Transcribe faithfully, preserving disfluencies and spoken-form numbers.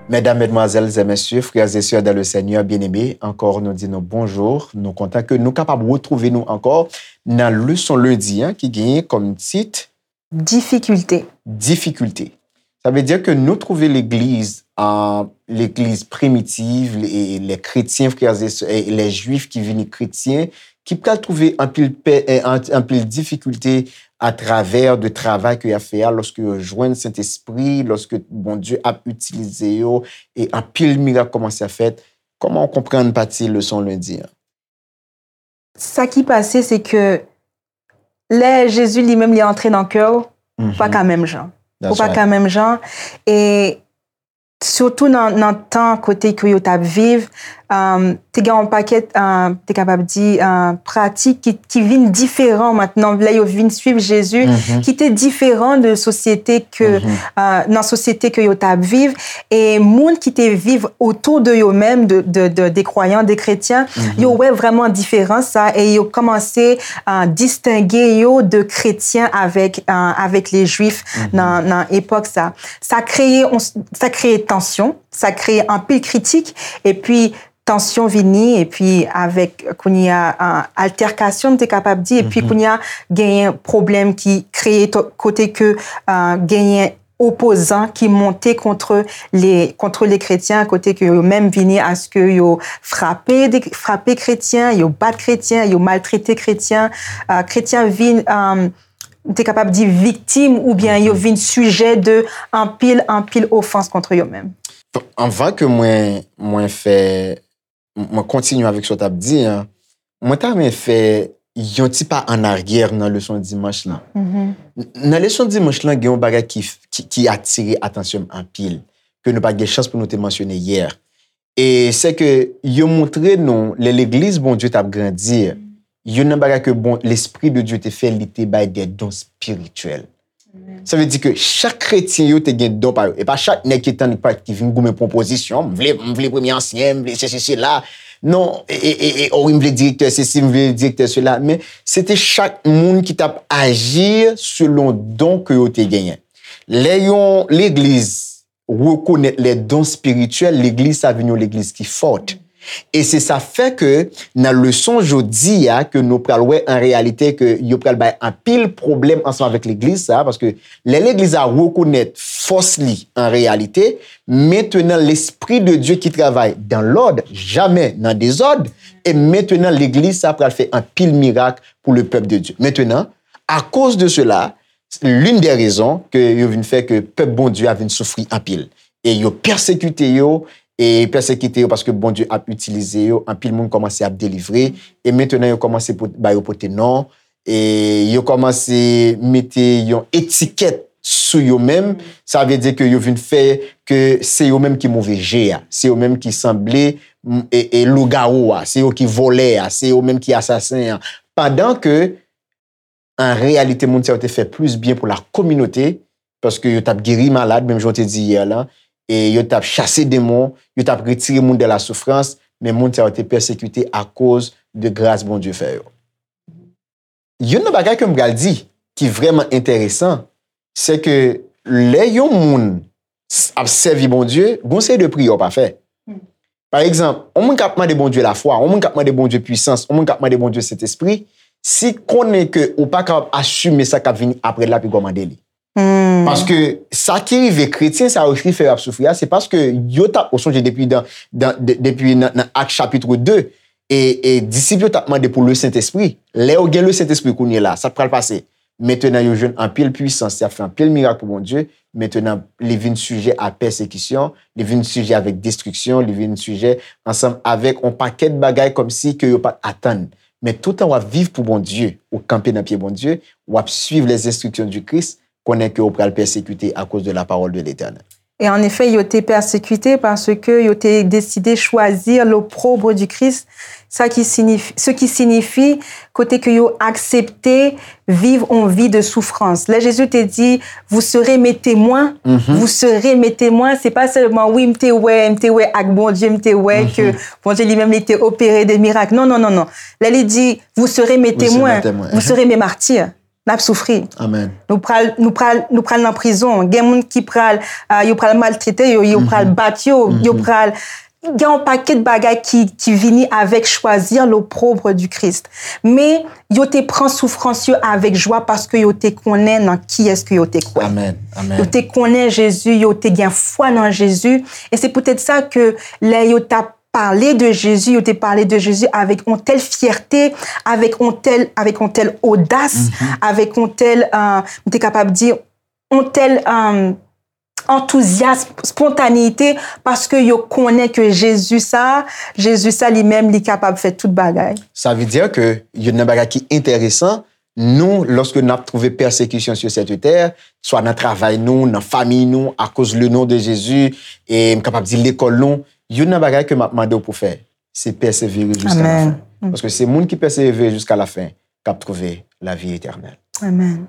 Mesdames, mesdemoiselles et messieurs, frères et sœurs dans le Seigneur bien-aimés, ankò nou di nou bonjou. Nou kontan ke nou kapab retwouve nou ankò nan leson lendi an ki genyen kòm tit Difikilte. Difikilte. Sa vle di ke nou twouve legliz, euh, legliz primitiv, les, les chrétiens, frères et sœurs, les juifs ki vini kretyen, ki pral twouve anpil pè, eh, an-, anpil difikilte atravè de travay ke y ap fè a, lòske yo jwenn Sentespri, lòske Bondye ap itilize yo, e anpil mirak kòmanse ap fèt. Kòman w konprann pati leson lendi an? Sa ki pase, se ke lè Jezi li menm li antre nan kè w, ou pa ka menm jan. Ou pa ka menm jan. E sitou nan, nan tan kote ke yo t ap viv, um, te gen yon pakèt, uh, te kapab di, uh, pratik ki, ki vin diferan mentnan, lè yo vin swiv Jezi, ki te diferan de sosyete ke, uh, nan sosyete ke yo t ap viv. E moun ki te viv otou de yo menm, de, de, de, de kwayan, de kretyen, yo wè vrèman diferans sa e yo kòmanse, uh, distenge yo de kretyen avèk, uh, avèk le jwif nan, nan epòk sa. Sa kreye, sa kreye tansyon, sa kreye anpil kritik, epi tansyon vini, epi avèk kounye a, uh, altèkasyon, m te kapab di, epi kounye a genyen pwoblèm ki kreye kote ke, uh, genyen opozan ki monte kont le, kont le kretyen, kote ke yo menm vini aske yo frape, frape kretyen, yo bat kretyen, yo maltrete kretyen, uh, kretyen vin, um, m te kapab di viktim oubyen yo vin sijè de anpil, anpil ofans kont yo menm. Anvan ke mwen, mwen fè, mwen kontinye avèk sa w t ap di an, mwen ta renmen fè yon ti pa an aryè nan leson dimanch lan. Nan leson dimanch lan, gen yon bagay ki, ki, ki atire atansyon m anpil, ke nou pa t gen chans pou nou te mansyone yè. E se ke yo montre nou, lè legliz Bondye t ap grandi, youn nan bagay ke bon, Lespri de Dye te fè, li te bay de don espirityèl. Sa vle di ke chak kretyen yo te gen don pa yo. E pa chak nèg ki tann ki vin goumen pou yon pozisyon, m vle, m vle premye ansyen, m vle sesi sela. Non, e, e, e, e, o wi, m vle direktè sesi, m vle direktè sela. Men se te chak moun ki t ap aji selon don ke yo te genyen. Lè yon legliz rekonèt les dons spirituels, legliz sa vin yon legliz ki fòt. E se sa fè ke nan leson jodi a ke nou pral wè an reyalite ke yo pral bay anpil pwoblèm ansanm avèk legliz sa, paske lè legliz la rekonèt fòs li an reyalite, mentenan Lespri de Dye ki travay dans l'ordre, jamè nan dezòd, e mentenan legliz sa pral fè anpil mirak pou le pèp de Dye. Mentenan, akoz de sela, l'une des raisons ke yo vin fè ke pèp Bondye a vin soufri anpil. E yo pèsekite yo, e pèsekite yo paske Bondye ap itilize yo, anpil moun kòmanse ap delivre, e mentenan yo kòmanse pot-, ba yo pote non, e yo kòmanse mete yon etikèt sou yo menm, sa vle di ke yo vin fè ke se yo menm ki move je a, se yo menm ki sanble, m, e, e lougawou a, se yo ki vòlè a, se yo menm ki asasen an. Pandan ke an reyalite, moun sa yo te fè plis byen pou la kominote, paske yo t ap geri malad, menm jan w te di yè la, e yo t ap chase demon, yo t ap retire moun de la soufrans, men moun sa yo te pèsekite akoz de gras Bondye fè yo. Youn nan bagay ke m pral di, ki vrèman enteresan, se ke lè yon moun s-, ap sèvi Bondye, gon seri de priyè w pa fè. Pa egzanp, yon moun k ap mande Bondye lafwa, yon moun k ap mande Bondye pwisans, yon moun k ap mande Bondye Sentespri, si konnen ke ou pa kapab asime sa k ap vini apre l la, pi gwo mande li. Paske sa ki rive kretyen sa yo ki fè yo ap soufri a, se paske yo t ap, ou sonje depi dan, dan, de, depi nan, nan Ak chapit de, e, e disip yo t ap mande pou le Sentespri. Lè yo gen le Sentespri kounye la, sa k pral pase? Mentenan yo jwenn anpil pwisans, y ap fè anpil mirak pou Bondye. Mentenan, li vin sijè a pèsekisyon, li vin sijè avèk destriksyon, li vin sijè ansanm avèk yon pakèt bagay kòmsi ke yo pa t atann. Men toutan w ap viv pou Bondye, ou kanpe nan pye Bondye, w ap suiv les instructions du Christ, konnen ke w pral pèsekite akoz de la parole de l'Éternel. Et en effet, yo te pèsekite paske yo te deside chwazi l'opprobre du Christ, sa ki siyifi, ce qui signifie kote ke yo aksepte viv on vi de soufrans. Lè Jezi te di, vous serez mes témoins, vous serez mes témoins, se pa sèlman, wi, m te wè, m te wè ak Bondye, m te wè ke Bondye li menm li te opere de mirak. Non, non, non, non. Lè li di, vous serez mes témoins, vous serez mes martyrs. N ap soufri. Amen. Nou pral, nou pral, nou pral nan prizon. Gen moun ki pral, uh, yo pral maltrete yo, yo pral bat yo, yo pral gen yon pakèt bagay ki, ki vini avèk chwazi l'opprobre du Christ. Men, yo te pran soufrans yo avèk jwa paske yo te konnen nan kiyès ke yo te kwè. Amen. Amen. Yo te konnen Jezi, yo te gen fwa nan Jezi. E se poutèt sa ke lè yo t ap pale de Jezi, yo te pale de Jezi avèk yon tèl fyète, avèk yon tèl, avèk yon tèl odas, avèk yon tèl, uh, m te kapab di, yon tèl, um, antouzyasm, spontaneyite, paske yo konnen ke Jezi sa, Jezi sa li menm, li kapab fè tout bagay. Sa vle di ke youn nan bagay ki enteresan, nou, lòske n ap twouve pèsekisyon sou sèt tè, swa nan travay nou, nan fanmi nou, akoz le non de Jezi, e m kapab di lekòl nou, youn nan bagay ke m ap mande w pou fè, se pèsevere jiska lafen. Paske se moun ki pèsevere jiska lafen k ap twouve lavi etènèl. Amen.